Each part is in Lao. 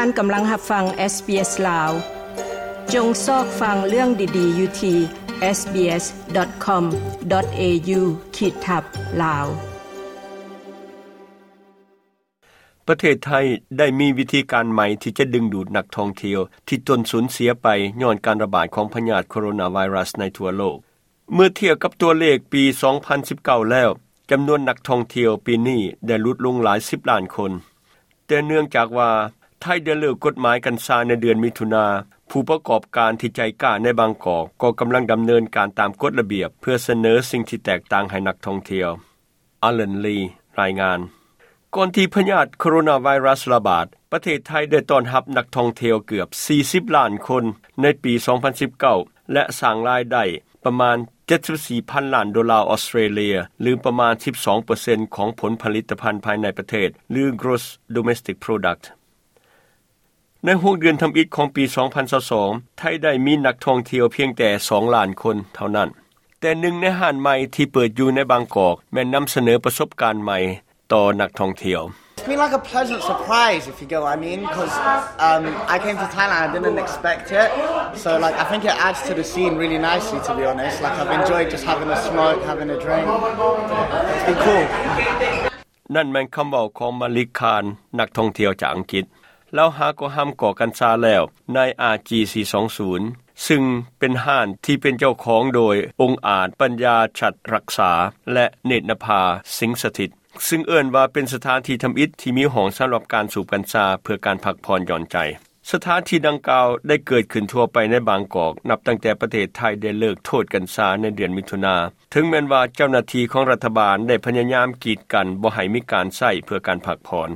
ທ່ານກຳລັງຮັບຟັງ SBS ລາວ. ຈົ່ງຊອກຟັງເລື່ອງດີໆຢູ່ທີ່ SBS.com.au ຂີດທັບ ລາວ. ປະເທດໄທໄດ້ມີວິທີການໃໝ່ທີ່ຈະດຶງດູດນັກທ່ອງທ່ຽວທີ່ຕົນສູນເສຍໄປຍ້ອນການລະບາດຂອງພະຍາດໂຄໂຣນາໄວຣັສໃນທົ່ວໂລກ. ເມື່ອທຽບກັບຕົວເລກປີສອງພັນສິບເກົ້າແລ້ວ, ຈຳນວນນັກທ່ອງທ່ຽວປີນີ້ໄດ້ຫຼຸດລົງຫຼາຍສິບລ້ານຄົນ. ແຕ່ເນື່ອງຈາກວ່າໄທໄດ້ເລີກກົດໝາຍກັນຊາໃນເດືອນມິຖຸນາ, ຜູ້ປະກອບການທີ່ໃຈກ້າໃນບາງກອກກໍກຳລັງດຳເນີນການຕາມກົດລະບຽບ ເພື່ອສະເໜີສິ່ງທີ່ແຕກຕ່າງໃຫ້ນັກທ່ອງທ່ຽວ. Alan Lee ລາຍງານ. ກ່ອນທີ່ພະຍາດໂຄໂຣນາໄວຣັສລະບາດ, ປະເທດໄທໄດ້ຕ້ອນຮັບນັກທ່ອງທ່ຽວເກືອບສີ່ສິບລ້ານຄົນໃນປີສອງພັນສິບເກົ້າ ແລະ ສ້າງລາຍໄດ້ປະມານເຈັດສິບສີ່ພັນລ້ານໂດລາອອສເຕຣເລຍ ຫຼື ປະມານສິບສອງເປີເຊັນຂອງຜົນຜະລິດຕະພັນພາຍໃນປະເທດ ຫຼື Gross Domestic Product. ໃນຫົກເດືອນທຳອິດຂອງປີສອງພັນຊາວສອງ, ໄທໄດ້ມີນັກທ່ອງທ່ຽວພຽງແຕ່ສອງລ້ານຄົນເທົ່ານັ້ນ. ແຕ່ໜຶ່ງໃນຮ້ານໃໝ່ທີ່ເປີດຢູ່ໃນບາງກອກ ແມ່ນນຳສະເໜີປະສົບການໃໝ່ຕໍ່ນັກທ່ອງທ່ຽວ. It's been, like, a pleasant surprise, if you get what I mean, 'cause, um, I came to Thailand, I didn't expect it. So, like, I think it adds to the scene really nicely, to be honest. Like, I've enjoyed just having a smoke, having a drink. It's been cool. ນັ້ນແມ່ນຄຳເວົ້າຂອງມາລິກ ຄານ ນັກທ່ອງທ່ຽວຈາກອັງກິດ. ລາວຫາກໍຫ້າມກອກກັນຊາແລ້ວໃນ ອາຈີ ສີ່ສອງສູນ ຊຶ່ງເປັນຮ້ານທີ່ເປັນເຈົ້າຂອງໂດຍອົງອາດ ປັນຍາ ສັດລັກສາ ແລະ ເນດນະພາ ສິງສະຖິດ, ຊຶ່ງເອີ້ນວ່າເປັນສະຖານທີ່ທຳອິດທີ່ມີຫ້ອງສຳລັບການສູບກັນຊາເພື່ອການພັກຜ່ອນຢ່ອນໃຈ. ສະຖານທີ່ດັ່ງກ່າວໄດ້ເກີດຂຶ້ນທົ່ວໄປໃນບາງກອກ ນັບຕັ້ງແຕ່ປະເທດໄທໄດ້ເລີກໂທດກັນຊາໃນເດືອນມິຖຸນາ, ເຖິງແມ່ນວ່າເຈົ້າໜ້າທີ່ຂອງລັດຖະບານໄດ້ພະຍາຍາມກີດກັ້ນບໍ່ໃຫ້ມີການໃຊ້ເພື່ອການພັກຜ່ອນ.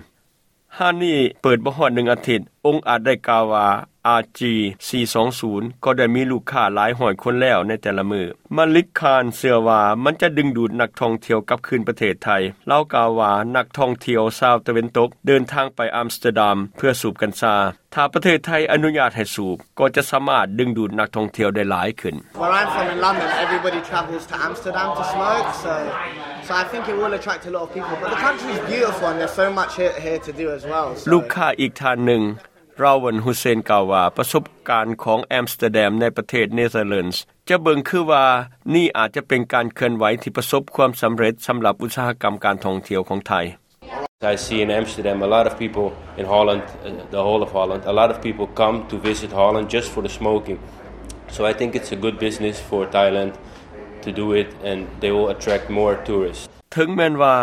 ຮ້ານນີ້ເປີດບໍ່ຮອດໜຶ່ງອາທິດ, ອົງອາດໄດ້ກ່າວວ່າ ອາຈີ ສີ່ສອງສູນ ກໍໄດ້ມີລູກຄ້າຫຼາຍຮ້ອຍຄົນແລ້ວໃນແຕ່ລະມື້. ມາລິກ ຄານ ເຊື່ອວ່າມັນຈະດຶງດູດນັກທ່ອງທ່ຽວກັບຄືນປະເທດໄທ. ລາວກ່າວວ່າ ນັກທ່ອງທ່ຽວຊາວຕາເວັນຕົກເດີນທາງໄປອຳສະເຕີດຳເພື່ອສູບກັນຊາ. ຖ້າປະເທດໄທອະນຸຍາດໃຫ້ສູບ, ກໍຈະສາມາດດຶງດູດນັກທ່ອງທ່ຽວໄດ້ຫຼາຍຂຶ້ນ. Where I'm from in London, everybody travels to Amsterdam to smoke, so, so I think it will attract a lot of people. But the country is beautiful and there's so much here, here to do as well, so. ລູກຄ້າອີກທ່ານໜຶ່ງ, ຣາວັນ ຮຸເຊນ ກ່າວວ່າ ປະສົບການຂອງແອມສະເຕີດຳໃນປະເທດເນເທີແລນ ຈະເບິ່ງຄືວ່ານີ້ອາດຈະເປັນການເຄື່ອນໄຫວທີ່ປະສົບຄວາມສຳເລັດສຳລັບອຸດສາຫະກຳການທ່ອງທ່ຽວຂອງໄທ. I see in Amsterdam a lot of people, in Holland, uh, the whole of Holland, a lot of people come to visit Holland just for the smoking. So I think it's a good business for Thailand to do it, and they will attract more tourists. ເຖິງແມ່ນວ່າ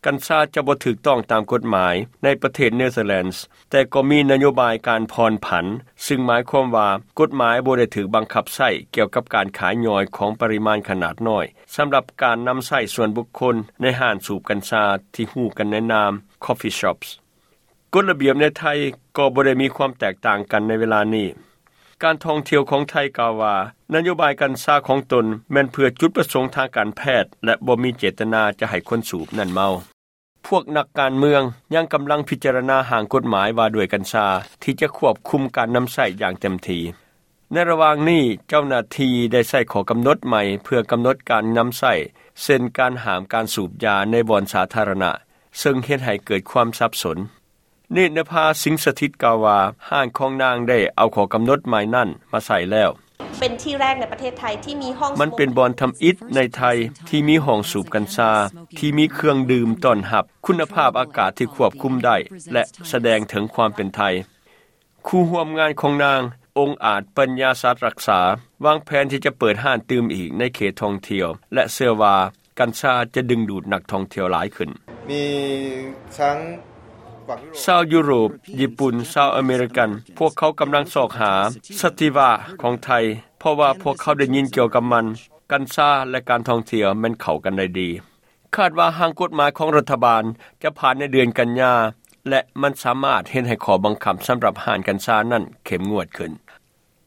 ກັນຊາຈະບໍ່ຖືກຕ້ອງຕາມກົດໝາຍໃນປະເທດເນເທີແລນ ແຕ່ກໍມີນະໂຍບາຍການຜ່ອນຜັນ, ຊຶ່ງໝາຍຄວາມວ່າກົດໝາຍບໍ່ໄດ້ຖືກບັງຄັບໃຊ້ກ່ຽວກັບການຂາຍຍ່ອຍຂອງປະລິມານຂະໜາດນ້ອຍ ສຳລັບການນຳໃຊ້ສ່ວນບຸກຄົນໃນຮ້ານສູບກັນຊາທີ່ຮູ້ກັນໃນນາມ coffee shops. ກົດລະບຽບໃນໄທກໍບໍ່ໄດ້ມີຄວາມແຕກຕ່າງກັນໃນເວລານີ້. ການທ່ອງທ່ຽວຂອງໄທກ່າວວ່າ ນະໂຍບາຍກັນຊາຂອງຕົນແມ່ນເພື່ອຈຸດປະສົງທາງການແພດ ແລະ ບໍ່ມີເຈດຕະນາຈະໃຫ້ຄົນສູບນັ້ນເມົາ. ພວກນັກການເມືອງຍັງກຳລັງພິຈາລະນາຮ່າງກົດໝາຍວ່າດ້ວຍກັນຊາ ທີ່ຈະຄວບຄຸມການນຳໃຊ້ຢ່າງເຕັມທີ່. ໃນລະຫວ່າງນີ້, ເຈົ້າໜ້າທີ່ໄດ້ໃຊ້ຂໍ້ກຳນົດໃໝ່ເພື່ອກຳນົດການນຳໃຊ້, ເຊັ່ນ ການຫ້າມການສູບຢາໃນບ່ອນສາທາລະນະ, ເຊິ່ງເຮັດໃຫ້ເກີດຄວາມສັບສົນ. ເນດນະພາ ສິງສະຖິດ ກ່າວວ່າ ຮ້ານຂອງນາງໄດ້ເອົາຂໍ້ກຳນົດໃໝ່ນັ້ນມາໃຊ້ແລ້ວ. ເປັນທີ່ແລກໃນປະເທດໄທທີ່ມີຫ້ອງ ມັນເປັນບ່ອນທຳອິດໃນໄທທີ່ມີຫ້ອງສູບກັນຊາ ທີ່ມີເຄື່ອງດື່ມຕ້ອນຮັບ, ຄຸນນະພາບອາກາດທີ່ຄວບຄຸມໄດ້ ແລະ ສະແດງເຖິງຄວາມເປັນໄທ. ຄູ່ຮ່ວມງານຂອງນາງ, ອົງອາດ ປັນຍາ ສັດລັກສາ ວາງແຜນທີ່ຈະເປີດຮ້ານຕື່ມອີກໃນເຂດທ່ອງທ່ຽວ ແລະ ເຊື່ອວ່າກັນຊາຈະດຶງດູດນັກທ່ອງທ່ຽວຫຼາຍຂຶ້ນ. ມີທັງ ຊາວຢູໂຣບ, ຍີ່ປຸ່ນ, ຊາວອາເມລິກັນ, ພວກເຂົາກຳລັງຊອກຫາສະຕິວະຂອງໄທ, ເພາະວ່າພວກເຂົາໄດ້ຍິນກ່ຽວກັບມັນ. ກັນຊາ ແລະ ການທ່ອງທ່ຽວແມ່ນເຂົ້າກັນໄດ້ດີ. ຄາດວ່າຮ່າງກົດໝາຍຂອງລັດຖະບານຈະຜ່ານໃນເດືອນກັນຍາ ແລະ ມັນສາມາດເຮັດໃຫ້ຂໍ້ບັງຄັບສຳລັບຮ້ານກັນຊານັ້ນເຂັ້ມງວດຂຶ້ນ.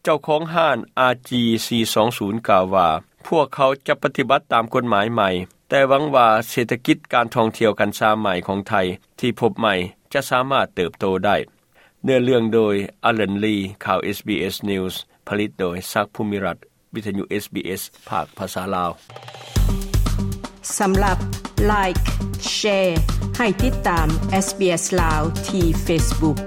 ເຈົ້າຂອງຮ້ານ ອາຈີ ສີ່ສອງສູນ ກ່າວວ່າ ພວກເຂົາຈະປະຕິບັດຕາມກົດໝາຍໃໝ່, ແຕ່ຫວັງວ່າເສດຖະກິດການທ່ອງທ່ຽວກັນຊາໃໝ່ຂອງໄທທີ່ພົບໃໝ່ຈະສາມາດເຕີບໂຕໄດ້. ເນື້ອເລື່ອງໂດຍ ອາລັນ ລີ, ຂ່າວ ເອສບີເອສ News, ຜະລິດໂດຍ ສັກ ພູມິລັດ, ວິທະຍຸ ເອສບີເອສ ພາກພາສາລາວ. ສຳລັບ Like, Share ໃຫ້ຕິດຕາມ SBS ລາວ ທີ່ Facebook.